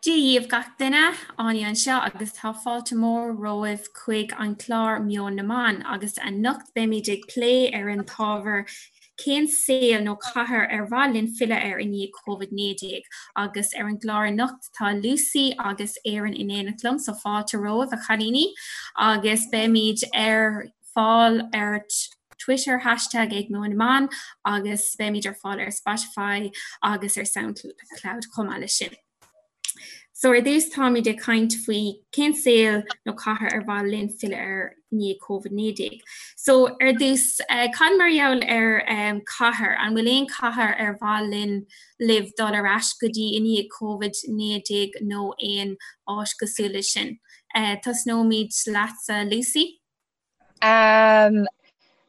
Dia dhaoibh gach duine, Áine anseo agus tá fáilte mór romhaibh chuig an clár Meon na mBan agus anocht beimid ag plé ar an t-ábhar cén saol nó cathair ar mhaith linn filleadh air i ndiaidh Covid-19 agus ar an gclár anocht tá Lucy agus Erin in éineacht liom so fáilte romhaibh a chailíní agus beimid ar fáil ar Twitter hashtag ag Meon na mBan agus beimid ar fáil ar Spotify agus ar Soundcloud chomh maith leis sin. So ar dtús táimid ag caint faoi cén saol nó cathair ar mhaith linn filleadh air i ndiaidh Covid-19. So ar dtús eh, cad mar gheall ar um, cathair, an bhfuil aon cathair ar mhaith linn libh dul ar ais go dtí i ndiaidh Covid-19 nó aon áit cosúil leis sin? Uh, tosnóimid leatsa Lucy. Um,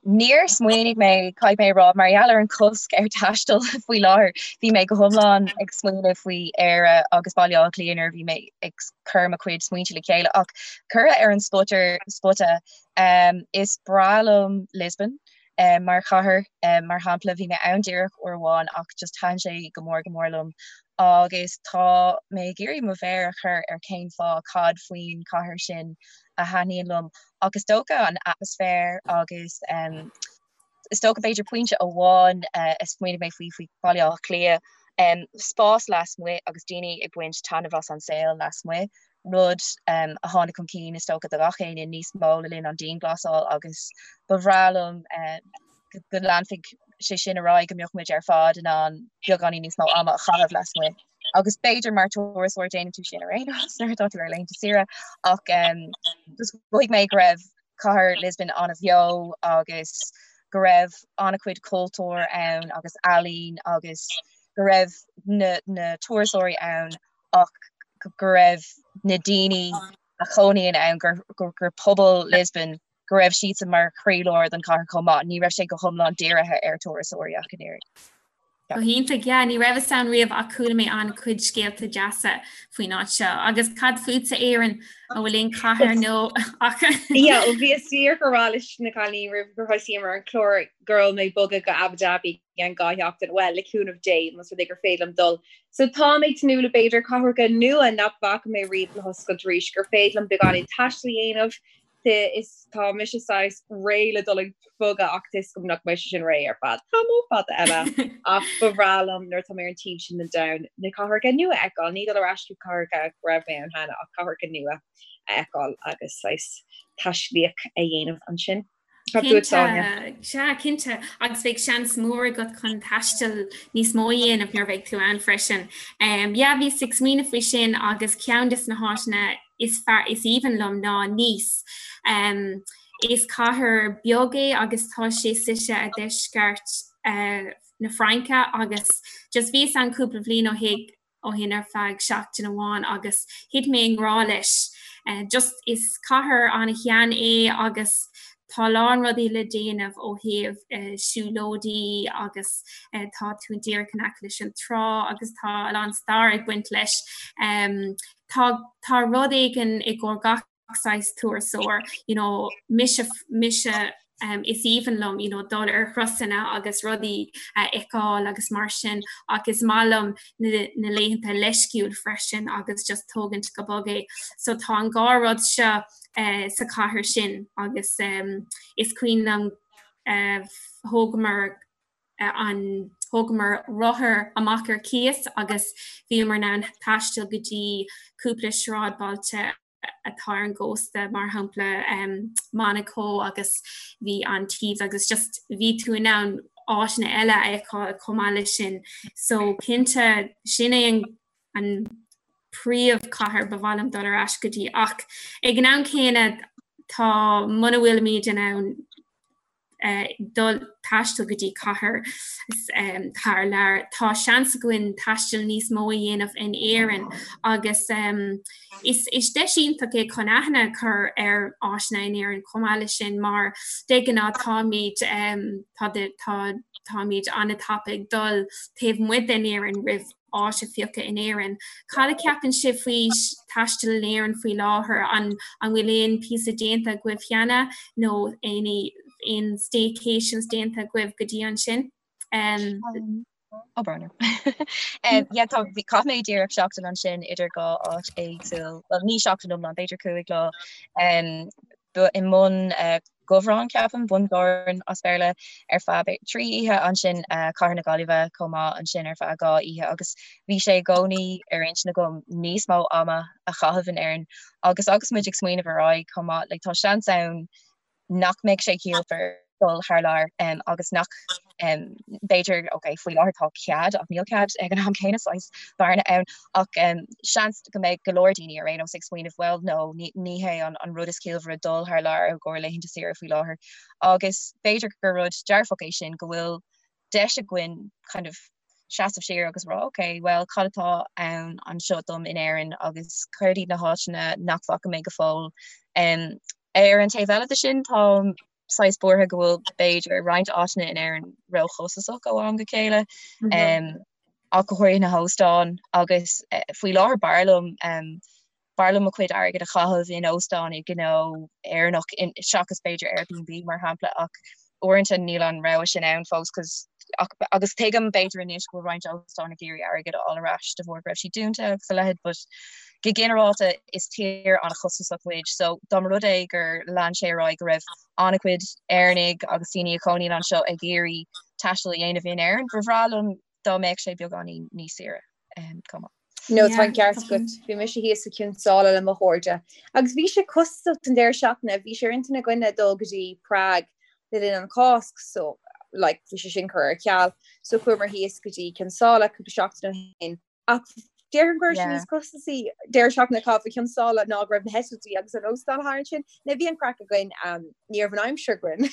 níor smaoinigh mé, caithfidh mé a rá, mar gheall ar an cosc ar taisteal faoi láthair, bhí mé go hiomlán ag smaoineamh faoi Éire agus Baile Átha Cliath nuair a bhí mé ag cur mo chuid smaointe le chéile ach curtha ar an spota spota um, is breá liom Lisbon um, mar chathair um, mar shampla bhí mé ann díreach uair amháin ach just thaitin sé go mór go mór liom agus tá mé ag iarraidh mo mhéar a chur ar cén fáth cad faoin chathair sin a thaitníonn liom ach is dócha an atmaisféar agus um, is dócha b'fhéidir pointe amháin uh, a smaoinigh mé faoi faoi Baile Átha Cliath um, spás lasmuigh agus daoine ag baint taitneamh as an saol lasmuigh rud um, a tháinig chun cinn is dócha do gach éinne níos mó le linn an dianghlasáil agus ba bhreá liom uh, go leanfaidh sé sin ar aghaidh go mbeadh muid ar fad in ann beagáinín níos mó ama a chaitheamh lasmuigh. Agus b'fhéidir mar turasóir déanann tú sin ar aon nós nuair atá tú ar laethanta saoire ach um, just mhothaigh mé go raibh cathair Lisbon an-bheo agus go raibh an-chuid cultúr ann agus ealaín agus go raibh na, na turasóirí ann ach go raibh na daoine a chónaíonn ann gur, gur, gur pobal Lisbon go raibh siadsan mar chroílár den chathair chomh maith, ní raibh sé go hiomlán dírithe ar turasóirí ach an oiread. Go hiontach, yeah, ní rabhas ann riamh ach chuala mé an-chuid scéalta deasa faoin áit seo. Agus cad fútsa Éireann, an bhfuil aon chathair nó ach? Yeah, ó bhíos díreach ag rá leis na cailíní roimh gur thosaíomar an clár go raibh mé ag bogadh go Abu Dhabi i gceann 2 sheachtain, well, le cúnamh Dé, más rud é gur féidir liom dul. So tá mé ag tnúth le b'fhéidir cathracha nua nach bhfaca mé riamh le hoscailt arís, gur féidir liom beagáinín taistil a dhéanamh, is tá mise saghas réidh le dul ag bogadh ach tá a fhios agam nach mbeidh sé sin réidh ar feadh tamall fada eile ach ba bhreá liom nuair atá mé ar an taobh sin den domhan na cathracha nua a fheiceáil, ní dul ar ais go cathracha go raibh mé ann cheana ach cathracha nua a fheiceáil agus saghas taistealaíocht a dhéanamh ansin. Cad fút, Áine? Sea, cinnte, agus beidh seans mór agat chun taisteal níos mó a dhéanamh nuair a bheidh tú ann freisin. Yeah, bhíos ag smaoineamh faoi sin agus ceann de na háiteanna is fearr, is aoibhinn liom ná Nice. Is cathair beag é agus tá sé suite i deisceart na Fraince agus just bhíos ann cúpla bhliain ó shin ó shin ar feadh seachtain amháin agus thit mé i ngrá leis. Just is cathair an-shean é agus tá a lán rudaí le déanamh ó thaobh siúlóidí agus tá tú díreach in aice leis an trá agus tá a lán stair ag baint leis. Tá tá rud éigin i gcomhair gach saghas turasóir, you know, mise mise um, is aoibhinn liom you know, dul ar thurasanna agus rudaí a fheiceáil agus mar sin ach is maith liom na, na laethanta leisciúil freisin agus just tógaint go bog é. So tá an dhá rud seo uh, sa chathair sin agus um, is cuimhin liom uh, thógamar an thógamar rothar amach ar cíos agus bhíomar in ann taisteal go dtí cúpla sráidbhailte atá ar an gcósta, mar shampla Monaco agus bhí Antibes agus just bhí tú in ann áiteanna eile a fheiceáil chomh maith leis sin. So cinnte sin é an an príomhchathair ba mhaith liom dul ar ais go dtí ach ag an am céanna tá muna bhfuilimid in ann dul taisteal go dtí cathair thar lear. Tá seans againn taisteal níos mó a dhéanamh in Éirinn agus is is deis iontach é chun aithne a chur ar áiteanna in Éirinn chomh maith leis sin mar de ghnáth táimid tá tá táimid an-tapa ag dul taobh amuigh den Éirinn roimh áit a phiocadh in Éirinn. Cad a cheapann sibh faoi taisteal in Éirinn faoi láthair? An an bhfuil aon píosa déanta agaibh cheana nó aon aon staycations déanta agaibh go dtí ansin? Um, Ó brón orm. Yeah, tá bhí chaith mé díreach seachtain ansin idir dhá áit éagsúil, well ní seachtain iomlán, b'fhéidir 5 lá. Um, ba i mBun uh, Dobhráin ceapaim, Bundoran as Béarla ar feadh 3 oíche ansin uh, Cathair na Gaillimhe chomh maith ansin ar feadh 2 oíche agus bhí sé i gcónaí ar intinn agam níos mó ama a chaitheamh in Éirinn agus agus muid ag smaoineamh ar aghaidh chomh maith, like, tá seans ann nach mbeidh sé ciallmhar dul thar lear agus nach b'fhéidir, ok, faoi láthair tá cead ach níl cead ag an am céanna saghas bearna ann ach seans go mbeidh go leor daoine ar aon nós ag smaoineamh bhuel no ní hé an rud is ciallmhaire dul thar lear i gcomhair laethanta saoire faoi láthair agus b'fhéidir gur rud dearfach é sin go bhfuil deis againn kind of seasamh siar agus rá ok well cad atá ann anseo dom in Éirinn agus céard iad na háiteanna nach bhfaca mé go fóill. Um, ar an taobh eile de sin táim saghas buartha go bhfuil b'fhéidir roinnt áiteanna in Éirinn róchostasach ó am go chéile mm -hmm. um, ach go háirithe na hóstáin agus uh, faoi láthair b'fhearr liom um, B'fhearr liom mo chuid airgid a chaitheamh in óstán i gnó Éireannach seachas b'fhéidir Airbnb mar shampla ach uaireanta níl an rogha sin ann fós cos ach agus tuigim b'fhéidir anois go bhfuil roinnt óstán ag iarraidh airgead a fháil ar ais de bharr go raibh siad dúnta agus a leithéid but go ginearálta is tír an-chostasach muid so dá mba rud é gur lean sé ar aghaidh go raibh an-chuid Éireannaigh agus daoine a chónaíonn anseo ag iarraidh taisteal a dhéanamh in Éirinn ba bhreá liom dá mbeadh sé beagáinín níos saoire chomh maith. No tá an ceart agat. Bhí mise thíos i Cionn tSáile le mo chairde. Agus bhí sé costasach don deireadh seachtaine, bhí sé ar intinn againne dul go dtí Prague le linn an Cásc so like bhí sé sin curtha ar ceal. So chuamar thíos go dtí Cionn tSáile cúpla seachtain ó shin. Ach déarfainn go raibh sé níos costasaí deireadh seachtaine a chaitheamh i Cionn tSáile ná go raibh na heitiltí agus an óstán thar ansin. Now bhí an craic againn, ní raibh an aimsir againn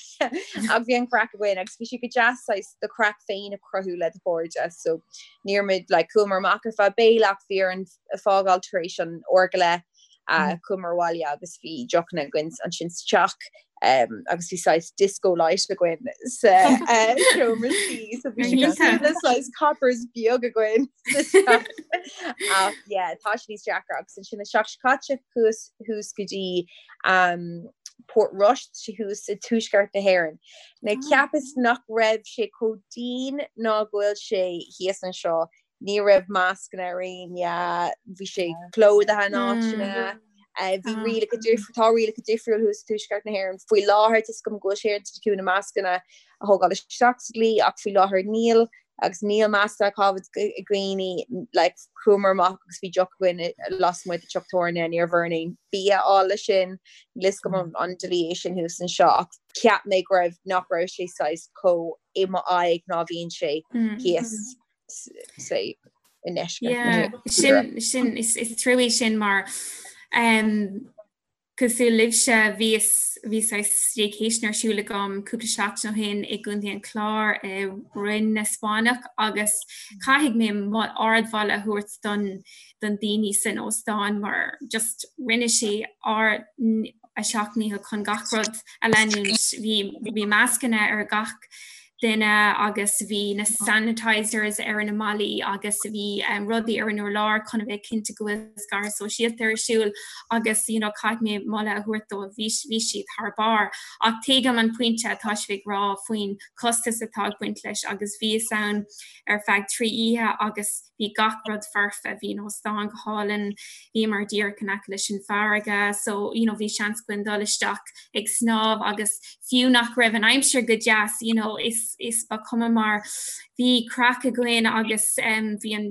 ach bhí an craic againn agus bhí sé go deas saghas do chraic féin a chruthú le do chairde so ní raibh muid like chuamar amach ar feadh béile ach bhí orainn fágáil tar éis an uair go leith uh, chuamar abhaile agus bhí deochanna againn ansin sa teach um, agus bhí saghas disco light againn sa uh, seomra suí so bhí sé cosúil le saghas coppers beag againn sa teach. Ach yeah, tá sé níos deacra agus ansin an seachtain seo caite chuas thuas go dtí um, Port Rois thuas i tuaisceart na hÉireann. Now cheapas nach raibh sé chomh dian ná go bhfuil sé thíos anseo, ní raibh mascanna ar éinne, bhí sé plódaithe in áiteanna, bhí rialacha difriúil, tá rialacha difriúil thuas i tuaisceart na hÉireann. Faoi láthair tá 'fhios agam go bhfuil sé ar intinn acu na mascanna a thógáil isteach sa dlí ach faoi láthair níl. agus níl mascanna á gcaitheamh ag daoine, like, chuamar amach agus bhí deoch againn lasmuigh de teach tábhairne, ní raibh orainn aon bia a fháil leis sin, níl 'fhios agam an dlí é sin thuas anseo ach cheap mé go raibh, nach raibh sé saghas chomh i mo aghaidh ná bhíonn sé thíos say i ndeisceart na tíre. Sin, sin, is trua sin mar um, Cosúil libhse, bhíos, bhí saghas staycation ar siúl agam cúpla seachtain ó shin i gContae an Chláir i Rinn na Spáinneach agus caithfidh mé ardmholadh a thabhairt don don daoine san óstán mar just rinne sé ár a seacht ndícheall chun gach rud a leanúint. Bhí bhí mascanna ar gach duine agus bhí na sanitizers ar na mballaí agus bhí rudaí ar an urlár chun a bheith cinnte go bhfuil scaradh sóisialta ar siúl agus you know caithfidh mé moladh a thabhairt dóibh, bhí bhí siad thar barr. Ach tuigim an pointe atá sibh ag rá faoin costas atá ag baint leis agus bhíos ann ar feadh 3 oíche agus bhí gach rud foirfe, bhí an óstán go hálainn, bhíomar díreach in aice leis an bhfarraige so you know bhí seans againn dul isteach ag snámh agus fiú nach raibh an aimsir go deas you know is is ba chuma mar bhí craic againn agus um, bhí an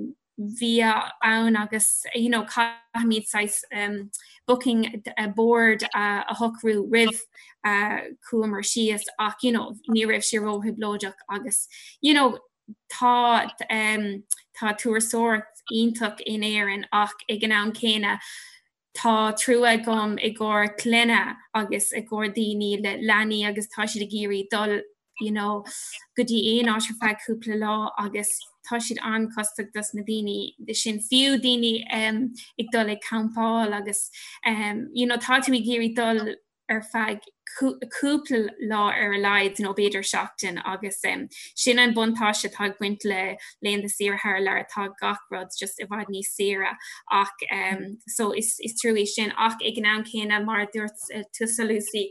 bia ann agus you know caithfimid saghas um, booking uh, board uh, a shocrú roimh uh, chuamar síos ach you know ní raibh sé róthrioblóideach agus you know Tá tá turasóireacht iontach in Éirinn ach ag an am céanna tá trua agam i gcomhair clainne agus i gcomhair daoine le leanaí agus tá siad ag iarraidh dul you know go dtí aon áit ar feadh cúpla lá agus tá siad an-chostasach dos na daoine sin fiú daoine um, ag dul ag campáil agus um, you know tá tú ag iarraidh dul ar feadh. Cúpla lá ar a laghad nó b'fhéidir seachtain agus sin an buntáiste atá ag baint le laethanta saoire thar lear, tá gach rud just i bhfad níos saoire ach so is trua é sin ach ag an am céanna mar a dúirt tusa Lucy,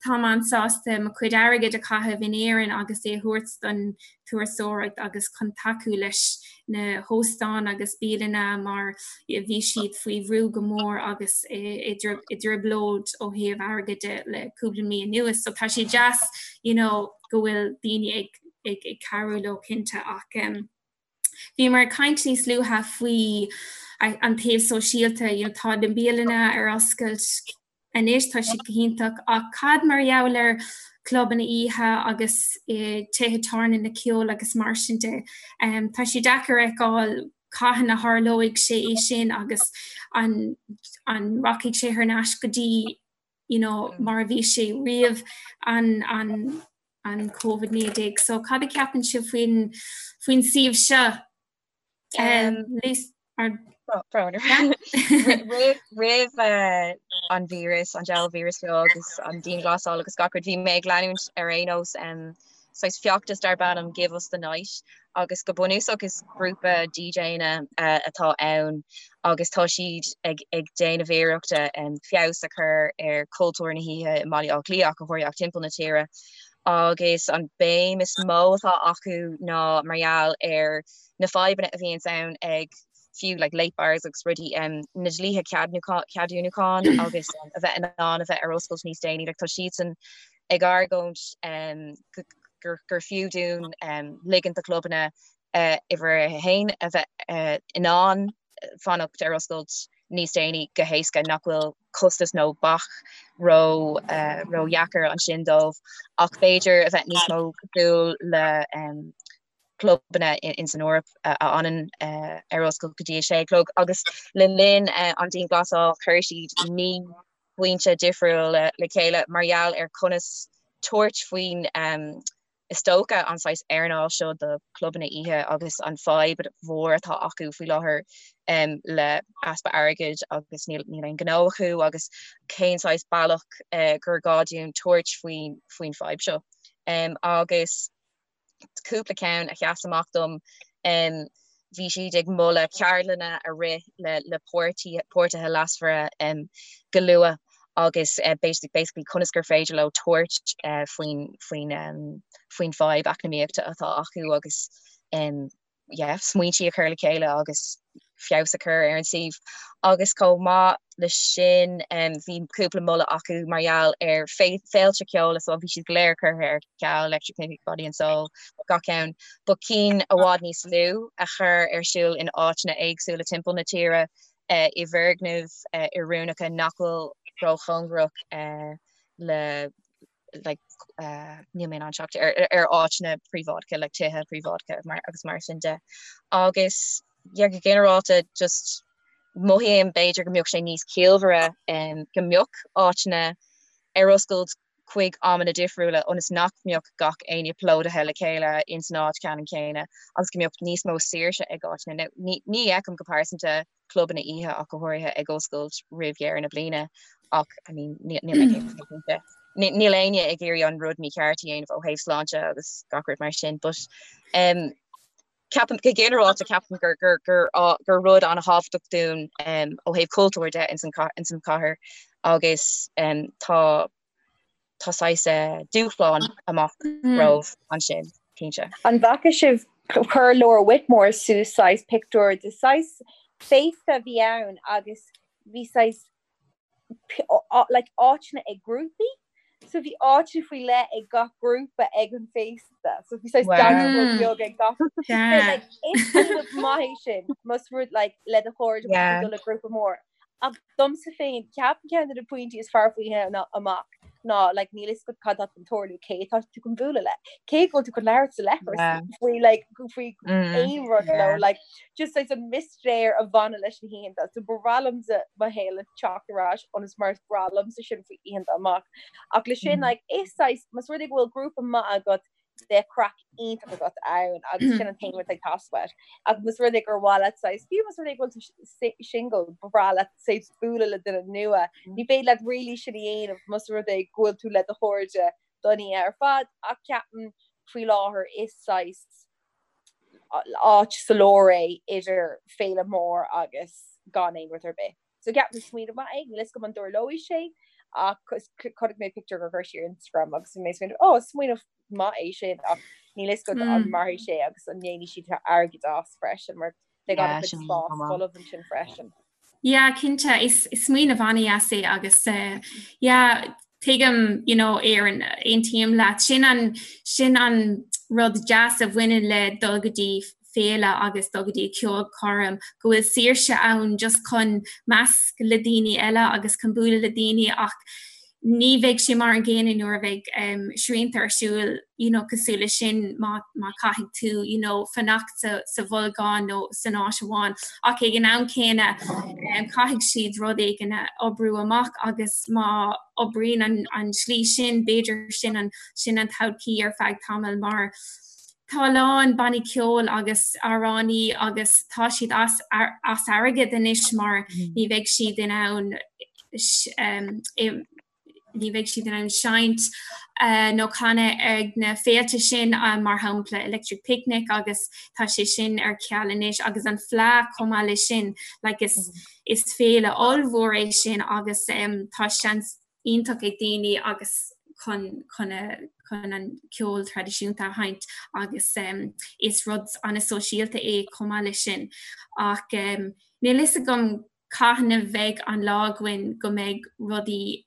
táim an-sásta mo chuid airgid a chaitheamh in Éirinn agus é a thabhairt don turasóireacht agus chun tacú leis na hóstáin agus bialanna mar bhí siad faoi bhrú go mór agus i dtrioblóid ó thaobh airgid de le cúpla mí anuas. So tá sé deas you know, go bhfuil daoine ag, ag, ag cabhrú leo cinnte ach um, bhíomar ag caint níos luaithe faoi an taobh sóisialta, you know, tá na bialanna ar oscailt Anois tá siad go hiontach ach cad mar gheall ar clubanna oíche agus tithe tábhairne na ceoil agus mar sin de? Tá sé deacair a fheiceáil cathain a tharlóidh sé é sin agus an an rachaidh sé thar n-ais go dtí you know mar a bhí sé roimh an an an Covid-19. So cad a cheapann sibh faoin faoin suíomh seo? Roimh an víreas, an diabhal víreas seo agus an dianghlasáil agus gach rud, bhí mé ag leanúint ar aon nós saghas feachtas darb ainm Give Us The Night agus go bunúsach is grúpa DJanna atá ann agus tá siad ag ag déanamh iarrachta feabhas a chur ar chultúr na hoíche i mBaile Átha Cliath ach go háirithe ach timpeall na tíre. Agus an béim is mó atá acu ná mar gheall ar na fadhbanna a bhíonns ann ag fiú like late bars agus rudaí, na dlíthe ceadúnúcháin agus a bheith in ann a bheith ar oscailt níos déanaí. Like tá siadsan ag argóint gur fiú dúinn ligint do chlubanna uimhir a haon a bheith in ann fanacht ar oscailt níos déanaí go héasca, nach bhfuil costas nó bac ró ródheacair ansin dóibh, ach b'fhéidir a bheith níos mó cosúil le clubanna in san Eoraip a fhanann ar oscailt go dtí a sé a chlog. Agus le linn an dianghlasáil chuir siad 9 bpointe difriúla le chéile mar gheall ar conas tabhairt faoin Is dócha an saghas earnáil seo do chlubanna oíche agus an fadhb mhór atá acu faoi láthair le easpa airgid agus níl aon ghnó acu agus cén saghas bealach gur gá dúinn tabhairt faoin faoin fadhb seo. Agus cúpla ceann a sheas amach dom, bhí siad ag moladh ceardlanna a rith le le páirtithe leasmhara go luath agus basically conas gur féidir leo tabhairt faoin faoin faoin fadhb eacnamaíochta atá acu agus yeah, smaointí a chur le chéile agus feabhas a chur ar an suíomh. Agus chomh maith le sin bhí cúpla moladh acu mar gheall ar féilte ceoil so bhí siad go léir curtha ar ceal, Electric Picnic, Body and Soul, gach ceann, but cinn i bhfad níos lú a chur ar siúl in áiteanna éagsúla timpeall na tíre i bhfoirgnimh oiriúnacha nach bhfuil róchóngarach le like níl mé in ann teacht ar ar áiteanna príobháideacha like tithe príobháideacha mar agus mar sin de. Agus yeah go ginearálta just mothaím b'fhéidir go mbeadh sé níos ciallmhaire go mbeadh áiteanna ar oscailt chuig amanna difriúla ionas nach mbeadh gach éinne plódaithe le chéile ins an áit ceannann céanna agus go mbeadh níos mó saoirse ag áiteanna. Now ní ní fheicim go pearsanta clubanna oíche ach go háirithe ag oscailt roimh dheireadh na bliana ach I mean níl mé cinnte. Níl éinne ag iarraidh an rud mícheart a dhéanamh ó thaobh sláinte agus gach rud mar sin but um, ceapaim go ginearálta ceapaim gur gur gur gur rud an-thábhachtach dúinn um, ó thaobh cultúir de ins an ins an chathair agus um, tá tá saghas dúshlán amach romhainn ansin, cinnte. An bhfaca sibh, chuir Laura Whitmore suas saghas pictiúr de saghas féasta a bhí ann agus bhí saghas like áiteanna ag grúpaí so bhí áiteanna faoi leith ag gach grúpa ag an féasta so bhí saghas dance floor beag ag gach like is rud maith é sin más rud like le do chairde yeah. le grúpa mór Ach domsa féin, ceapaim ceann de na pointí is fearr faoi oíche amach ná like níl fhios agat cad atá chun tarlú, cé atá tú chun bualadh le, cé go bhfuil tú chun labhairt sa leithreas faoi like faoi aon rud leo, like just like an mistéir a bhaineann leis na hoícheanta. So ba bhreá liomsa mo shaol a teacht ar ais ionas mar is breá liomsa sin faoi oícheanta amach. Ach le sin like is saghas más rud é go bhfuil grúpa maith agat. Bheadh craic iontach agat ann agus sin an t-aon rud ag teastáil uait. Ach más rud é gur mhaith leat saghas, fiú más rud é go bhfuil tú single, ba bhreá leat saghas bualadh le duine nua, ní féidir leat really sin a dhéanamh más rud é go bhfuil tú le do chairde don oíche ar fad ach ceapaim faoi láthair is saghas áit sa lár é idir féile mór agus gan aon rud ar bith. So ceapaim smaoineamh maith é, níl fhios agam an dtarlóidh sé ach chonaic mé pictiúr gur chuir sí ar Instagram agus bhí mé ag smaoineamh oh smaoineamh maith é sin ach níl fhios agam an mairfidh sé agus an ndéanfaidh siad airgead as freisin mar beidh an-chuid spás folamh ansin freisin. Yeah, cinnte, is smaoineamh an-deas é agus eh, yeah, tuigim, you know, Erin, aontaím leat. Sin an, sin an rud deas a bhaineann le dul go dtí féile agus dul go dtí ceolchoirm, go bhfuil saoirse ann just chun measc le daoine eile agus chun bualadh le daoine ach ní bheidh sé mar an gcéanna nuair a bheidh um, srianta ar siúl you know, cosúil le sin má, má caithfidh tú you know, fanacht sa, sa bholgán nó san áit amháin. Ach ag an am céanna um, caithfidh siad rud éigin a oibriú amach agus má oibríonn an, an slí sin, b'fhéidir sin an, sin an todhchaí ar feadh tamaill mar Tá a lán bannaí ceoil agus amhránaí agus tá siad as as airgead anois mar ní bheidh siad in ann ní bheidh siad in ann seinnt nó canadh ag na féilte sin mar shampla Electric Picnic agus tá sé sin ar ceal anois agus an Fleadh chomh maith leis sin like is is féile ollmhór é sin agus tá seans iontach ag daoine agus chun chun a chun an ceol traidisiúnta a sheinnt agus is rud an-sóisialta é chomh maith leis sin. Ach níl fhios agam cathain a bheidh an lá againn go mbeidh rudaí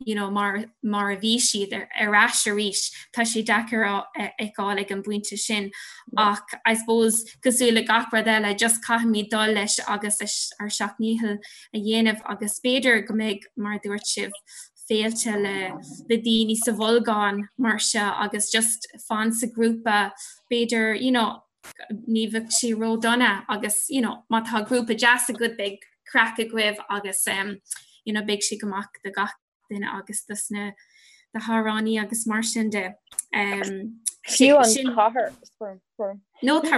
you know, mar mar a bhí siad ar ar ais arís. Tá sé deacair a fheiceáil ag an bpointe sin ach I suppose cosúil le gach rud eile just caithfimid dul leis agus ár seacht ndícheall a dhéanamh agus b'fhéidir go mbeidh, mar a dúirt sibh, féilte le le daoine sa bholgán mar seo agus just fan sa ghrúpa b'fhéidir you know ní bheadh sé ródhona agus you know má tá grúpa deas agat beidh craic agaibh agus um, you know beidh sé go maith do gach duine agus dos na na hamhránaí agus mar sin de. Um, Fiú an chathair No Mé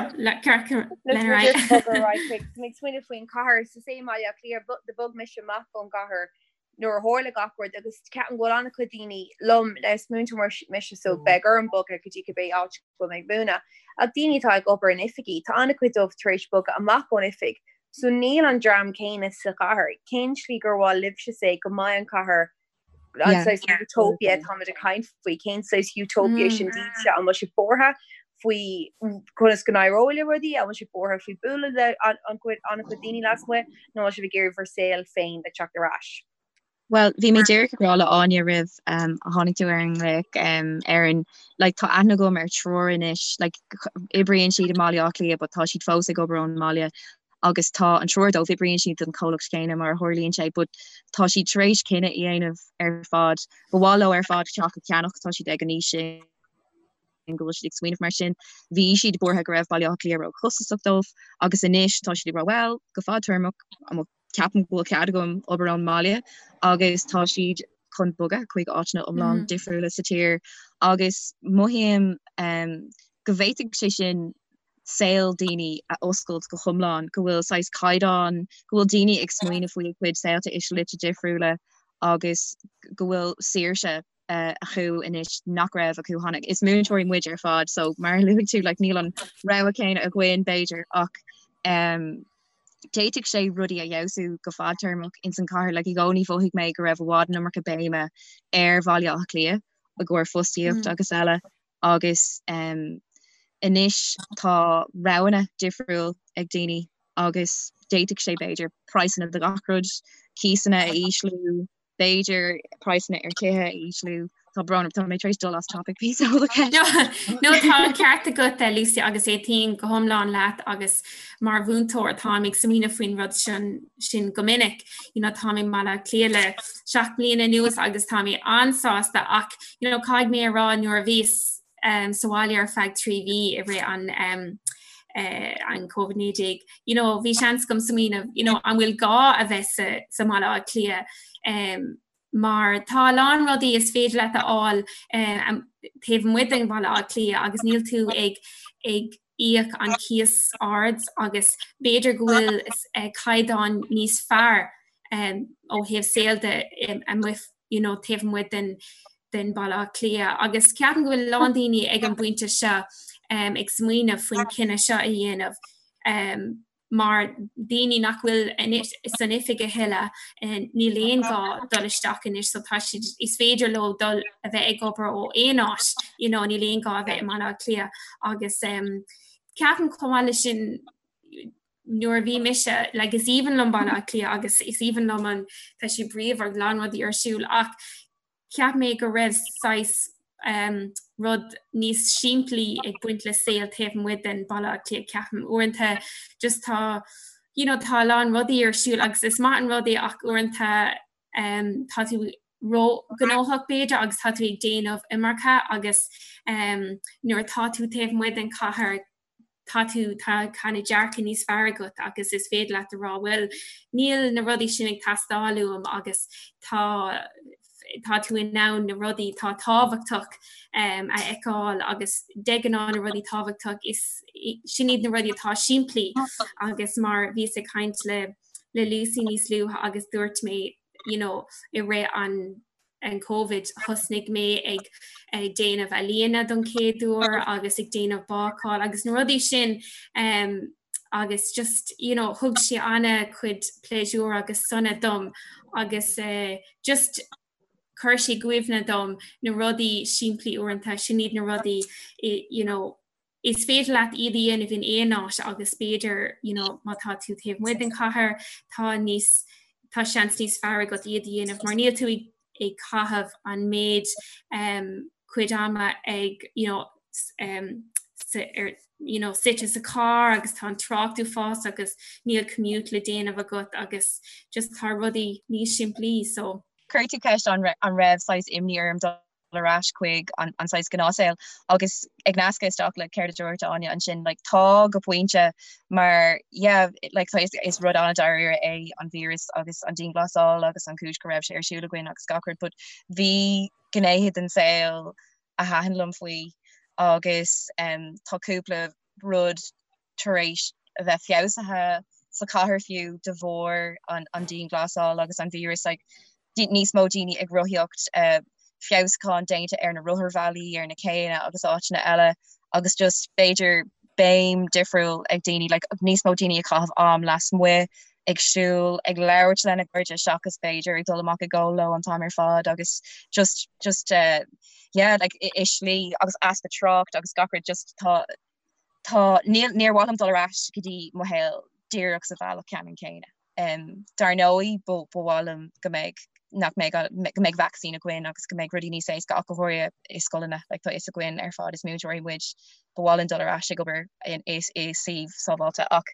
smaoineamh faoin chathair sa sé Baile Átha Cliath do bhog mise amach ón gcathair nuair a tharla gach rud agus ceapaim go bhfuil an-chuid daoine liom le is múinteoir mise so beidh orm bogadh go dtí cibé áit go bhfuil mé ag múineadh. Ach daoine atá ag obair in oifigí, tá an-chuid dóibh tar éis bogadh amach ón oifig So níl an dream céanna sa chathair. Cén slí gur mhaith libhse say go mbeidh an chathair an saghas utopia táimid ag caint faoi, cén saghas utopia sin daoibhse? An bhfuil sibh buartha faoi conas go n-éireoidh le rudaí? An bhfuil sibh buartha faoi bualadh le an-chuid daoine lasmuigh nó an bhfuil sibh ag iarraidh bhur saol féin a teacht ar ais? Bhuel, bhí mé díreach ag rá le Áine roimh um, a tháinig tú ar an nglaoch um, Erin, like, tá aithne agam ar triúr anois, like, oibríonn siad i mBaile Átha Cliath but tá siad fós ag obair ón mbaile agus tá an triúr dóibh, oibríonn siad don chomhlacht céanna mar a tharlaíonn sé but tá siad tar éis cinneadh a dhéanamh ar fad, ba mhaith leo ar fad teach a cheannach, tá siad ag an aois sin. go bhfuil siad ag smaoineamh mar sin. Bhí siad buartha go raibh Baile Átha Cliath róchostasach dóibh agus anois tá siad ag rá bhuel, go fadtéarmach, ceapaim go bhfuil cead agam obair ón mbaile agus tá siad chun bogadh chuig áiteanna iomlán mm. difriúla sa tír agus mothaím um, go bhféadfadh sé sin saol daoine a oscailt go hiomlán, go bhfuil saghas caighdeán, go bhfuil daoine ag smaoineamh faoi a gcuid saolta i slite difriúla agus go bhfuil saoirse acu anois nach raibh acu cheana. Is múinteoirí muid ar fad so mar a luaigh tú like, níl an rogha céanna againn b'fhéidir ach um, d'fhéadfadh sé rudaí a fheabhsú go fadtéarmach ins an chathair like, i gcónaí mhothaigh mé go raibh i bhfad an iomarca béime ar Bhaile Átha Cliath i gcomhair fostaíocht mm. agus eile agus um, anois tá roghanna difriúil ag daoine agus d'fhéadfadh sé b'fhéidir praghsanna de gach rud, cíosanna a ísliú, b'fhéidir praghsanna ar tithe a ísliú. Tá brón orm, tá mé tar éis dul as topic píosa ó do cheist. No tá an ceart agat eh, Lucy agus aontaím go hiomlán leat agus mar mhúinteoir táim ag smaoineamh faoin rud sin sin go minic. You know, táim i mBaile Átha Cliath le 7 mbliana anuas agus tá mé an-sásta ach you know, caithfidh mé a rá nuair a bhíos um, sa bhaile ar feadh 3 mhí i rith an um, uh, an COVID-19. You know, bhí seans agam smaoineamh, you know, an bhfuil gá a bheith sa, sa mBaile Átha Cliath um, Mar tá a lán rudaí is féidir leat a fháil taobh amuigh den Bhaile Átha Cliath agus níl tú ag ag íoc an cíos ard agus b'fhéidir go bhfuil caighdeán níos fearr ó thaobh saoil de amuigh you know, taobh amuigh den den Bhaile Átha Cliath agus ceapaim go bhfuil a lán daoine ag an bpointe seo ag smaoineamh faoin cinneadh seo a dhéanamh. Mar daoine nach bhfuil san oifig a thuilleadh, níl aon ghá dul isteach anois so tá siad, is féidir leo dul a bheith ag obair ó aon áit, you know, níl aon ghá a bheith i mBaile Átha Cliath agus ceapaim chomh maith leis sin nuair a bhí mise, like is aoibhinn liom Baile Átha Cliath agus is aoibhinn liom an, tá sé bríomhar, a lán rudaí ar siúl ach Cheap mé go raibh saghas rud níos simplí ag baint le saol taobh amuigh den Baile Átha Cliath, ceapaim. Uaireanta just tá, you know, tá a lán rudaí ar siúl agus is maith an rud é ach uaireanta tá tú ró-ghnóthach b'fhéidir agus tá tú ag déanamh iomarca agus nuair atá tú taobh amuigh den chathair tá tú, tá kind of dearcadh níos fearr agat agus is féidir leat a rá bhuel níl na rudaí sin ag teastáil uaim agus tá tá tú in ann na rudaí atá tábhachtach um, a fheiceáil agus de ghnáth na rudaí tábhachtach is sin iad na rudaí atá simplí agus mar bhíos ag caint le le Lucy níos luaithe agus dúirt mé you know, i rith an an Covid, thosnaigh mé ag ag déanamh ealaíona don chéad uair agus ag déanamh bácáil agus na rudaí sin um, agus just you know, thug sé an-chuid pléisiúr agus sona dom agus uh, just chuir sé i gcuimhne dom na rudaí simplí uaireanta sin iad na rudaí you know, is féidir leat iad a dhéanamh in aon áit agus b'fhéidir you know, má tá tú taobh amuigh den chathair tá níos tá seans níos fearr agat iad a dhéanamh mar níl tú ag, ag caitheamh an méid um, cuid ama ag you know, um, sa, ar, you know, suite sa carr agus tá an trácht uafásach agus níl commute le déanamh agat agus just tá rudaí níos simplí so. Chuir tú ceist an, an raibh saghas imní orm dul ar ais chuig an saghas gnáthshaol agus ag nascadh isteach le céard a dúirt Áine ansin like tá go pointe mar yeah like tá is, is rud an-dáiríre é an víreas agus an dianghlasáil agus an chúis go raibh sé ar siúl againn agus gach rud but bhí gnéithe den saol a thaitin liom faoi agus um, tá cúpla rud tar éis a bheith feabhsaithe sa chathair fiú de bharr an, an dianghlasáil agus an víreas like, níos mó daoine ag rothaíocht, uh, feabhsúcháin déanta ar na rotharbhealaí, ar na céanna agus áiteanna eile agus just b'fhéidir béim difriúil ag daoine, like, níos mó daoine ag caitheamh am lasmuigh, ag siúl, ag labhairt lena gcairde seachas b'fhéidir ag dul amach ag ól leo an t-am ar fad agus just just uh, yeah, like, i, i slí agus easpa trácht agus gach rud just tá tá níl níor mhaith liom dul ar ais go dtí mo shaol díreach sa bhealach ceannann céanna. Um, dar ndóigh ba mhaith liom go mbeidh nach mbeidh go mbeidh vacsaín againn agus go mbeidh rudaí níos éasca ach go háirithe i scoileanna, like, tá fhios againn ar fad is múinteoirí muid, ba mhaith linn dul ar ais ag obair in i i suíomh sábháilte ach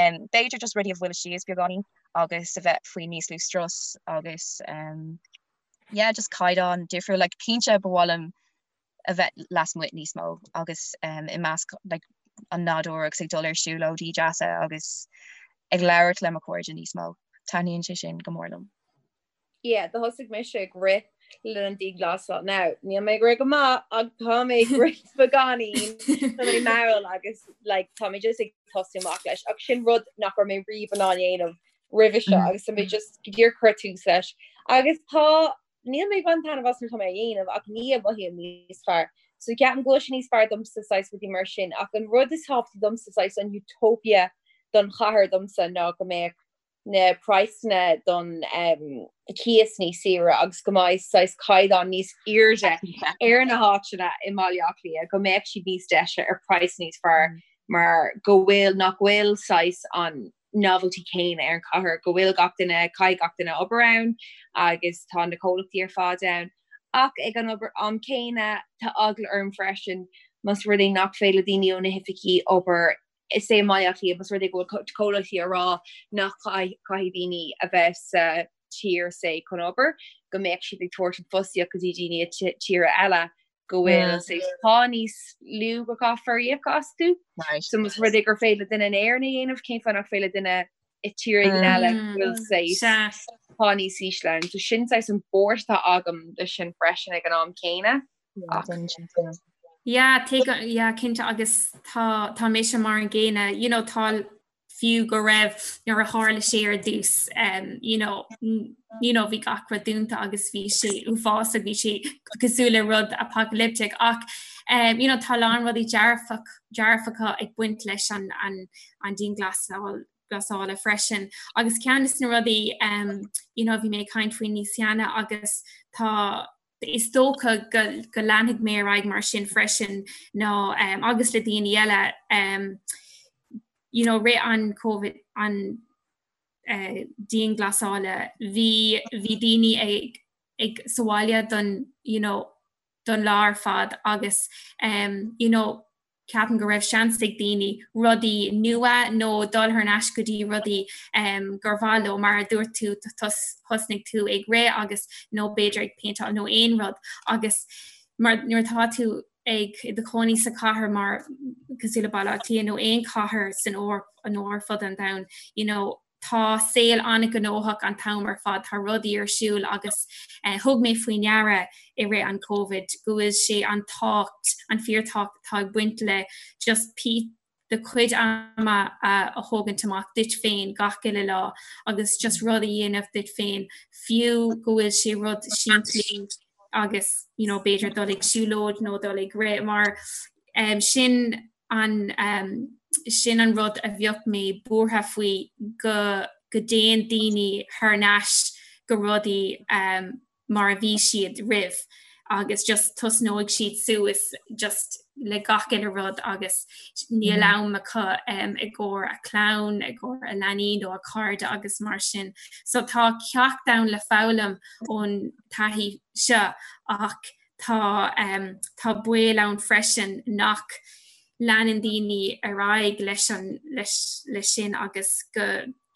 um, b'fhéidir just rudaí a bhualadh síos beagáinín agus a bheith faoi níos lú strus agus um, yeah, just caighdeán difriúil, like, cinnte ba mhaith liom a bheith lasmuigh níos mó agus i measc like, an nádúr agus ag dul ar siúlóidí deasa agus ag labhairt le mo chairde níos mó. Taitníonn sé sin go mór liom. Yeah, do thosaigh mise ag rith le linn an dianghlasáil. Now, níl mé ag rith go maith ach tá mé ag rith beagáinín, tá mé mall agus like, tá mé just ag tosú amach leis. Ach sin rud nach raibh mé riamh in ann dhéanamh roimhe seo agus tá mé just go díreach cur tús leis. Agus tá Níl mé ag baint taitneamh as nuair atá mé á dhéanamh ach ní mothaím níos fearr. So ceapaim go bhfuil sé níos fearr domsa saghas rudaí mar sin ach an rud is tábhachtaí domsa saghas an utopia don chathair domsa ná go mbeadh na praghsanna don um, cíos níos saoire agus go mbeidh saghas caighdeán níos airde ar na háiteanna i mBaile Átha Cliath, go mbeadh siad níos deise ar praghas níos fearr mm. mar go bhfuil nach bhfuil saghas an novelty céanna ar an chathair, go bhfuil gach duine, caithfidh gach duine obair ann agus tá na comhlachtaí ar fad ann. Ach ag an obair am céanna, tá eagla orm freisin más rud é nach féidir le daoine ó na hoifigí obair is é i mBaile Átha Cliath, más rud é go bhfuil comhlachtaí ag rá nach caithfidh daoine a bheith sa tír say chun obair, go mbeadh siad ag tabhairt an fostaíocht go dtí daoine i tíortha eile go bhfuil mm. pá níos lú go gcaithfear íoc astu. So más rud é gur féidir le duine in Éirinn a dhéanamh cén fáth nach féidir le duine i tír éigin eile mm. bhfuil sé. pá níos ísle ann. So sin saghas an buairt atá agam leis sin freisin ag an am céanna. Yeah, yeah, cinnte agus tá tá mise mar an gcéanna, you know, tá fiú go raibh nuair a tharla sé ar dtús um, you know, you know, bhí gach rud dúnta agus bhí sé uafásach, bhí sé cosúil le rud apocalyptic ach um, you know, tá a lán rudaí dearfach dearfacha ag baint leis an, an, an dianghlasáil glasála freisin. Agus ceann de na rudaí um, you know, bhí mé ag caint faoi níos cheana agus tá is dócha go, go leanfaidh mé ar aghaidh mar sin freisin ná um, agus le daoine eile um, you know, rith an COVID an uh, dianghlasála bhí bhí daoine ag ag sa bhaile don you know, don lá ar fad agus um, you know, ceapaim go raibh seans ag daoine rudaí nua nó dul thar n-ais go dtí rudaí um, gur mhaith leo mar a dúirt tú thosnaigh tú ag rith agus nó b'fhéidir ag péinteáil nó aon rud agus mar nuair atá tú ag i do chónaí sa chathair mar cosúil le Baile Átha Cliath nó aon chathair san Eoraip nó ar fud an domhain you know, Tá saol an-ghnóthach an t-am ar fad, tá rudaí ar siúl agus thug mé faoi ndeara i rith an Covid go bhfuil sé an tábhacht, an fíorthábhacht atá ag baint le just do chuid ama a thógaint amach duit féin gach uile lá agus just rud a dhéanamh duit féin fiú go bhfuil sé rud simplí agus you know b'fhéidir dul ag siúlóid nó dul ag rith mar um, sin an sin an rud a bheadh mé buartha faoi go go dtéann daoine thar n-ais go rudaí mar a bhí siad roimh agus just tosnóidh siad suas just le gach uile rud agus níl am acu i gcomhair a clann, i gcomhair a leanaí nó a cairde agus mar sin. So tá ceacht ann le foghlaim ón taithí seo ach Tá tá baol ann freisin nach leanann daoine ar aghaidh leis an leis leis sin agus go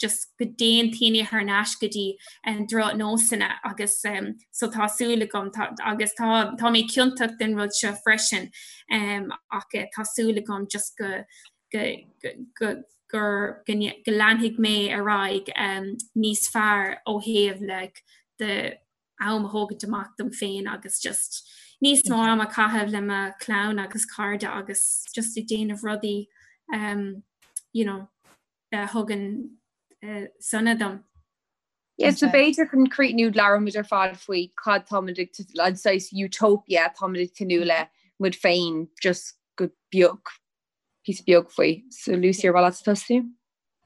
just go dtéann daoine thar n-ais go dtí an drochnósanna agus um, so tá súil agam tá, agus tá tá mé ciontach den rud seo freisin um, ach eh, tá súil agam just go go go go gur go, go leanfaidh mé ar aghaidh um, níos fearr ó thaobh like, de am a thógaint amach dom féin agus just níos mó am a chaitheamh le mo chlann agus cairde agus just ag déanamh rudaí um, you know, a thugann uh, sona dom. Yeah, so b'fhéidir chun críochnú labhraímid ar fad faoi cad táimid ag an saghas utopia táimid ag tnúth le muid féin just go beag píosa beag faoi. So Lucy ar mhaith leat tosú?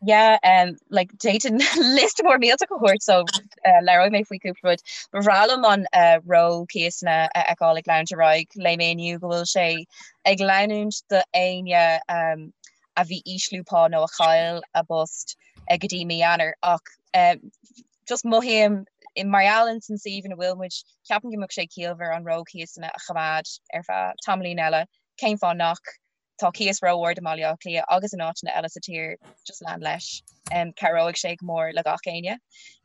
Yeah, um, like d'fhéadfainn liosta mór millteach a thabhairt so uh, labhróidh mé faoi cúpla rud. Ba bhreá liom an uh, ró-chíosanna a fheiceáil ag leanúint ar aghaidh. Léigh mé inniu go bhfuil sé ag leanúint do éinne um, a bhí ísliú pá nó a chaill a bpost uh, go dtí mí Eanáir ach um, just mothaím mar gheall ins an suíomh ina bhfuil muid, ceapaim go mbeadh sé ciallmhar an ró-chíosanna a choimeád ar feadh tamaillín eile. Cén fáth nach? Tá cíos ró-ard i mBaile Átha Cliath agus in áiteanna eile sa tír, just lean leis. Cabhróidh sé go mór le gach éinne.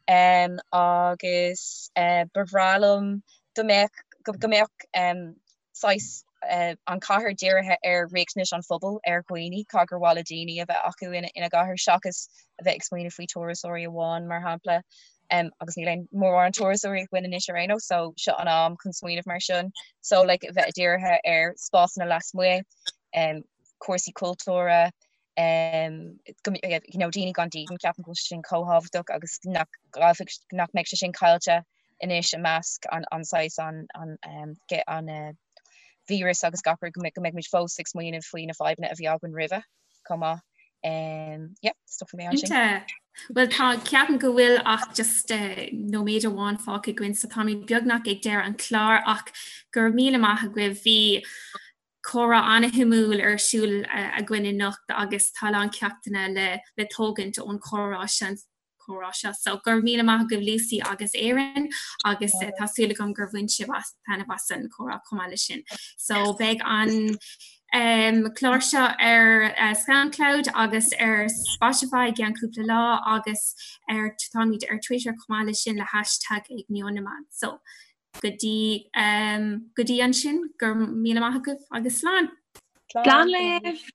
Agus ba bhreá liom go mbeadh, go mbeadh saghas an chathair dírithe ar riachtanais an phobail, ar dhaoine, cad gur mhaith le daoine a bheith acu ina gcathair seachas a bheith ag smaoineamh faoi turasóirí amháin, mar shampla. Agus níl aon mórán turasóirí againn anois ar aon nós, so seo an am chun smaoineamh mar sin. So like a bheith dírithe ar spásanna lasmuigh, um, cúrsaí cultúrtha, um, go, you know, daoine gan dídean, ceapaim go bhfuil sé sin chomh tábhachtach agus nach gcaillfidh, nach mbeidh sé sin caillte anois i measc an, an saghas an, an, um, an uh, víreas agus gach rud go mbeidh, go mbeidh muid fós ag smaoineamh faoi na fadhbanna a bhí againn roimhe chomh maith. Um, yeah, stopfaidh mé ansin. Cinnte. Bhuel tá ceapaim go bhfuil ach just uh, nóiméad amháin fágtha againn so táimid beagnach ag deireadh an chláir ach go raibh míle maith agaibh bhí comhrá an-shuimiúil ar siúl uh, againn anocht agus tá a lán ceachtanna le, le tógaint ón chomhrá sin comhrá seo. So go raibh míle maith agaibh Lucy agus Erin agus uh, tá súil agam gur bhain sibh as taitneamh as an chomhrá chomh maith leis sin. So beidh an um, clár seo ar uh, Soundcloud agus ar Spotify i gceann cúpla lá agus ar táimid ar Twitter chomh maith leis sin le hashtag ag Meon na Meán. So go dtí um, go dtí ansin go raibh míle maith agaibh agus slán. Slán libh!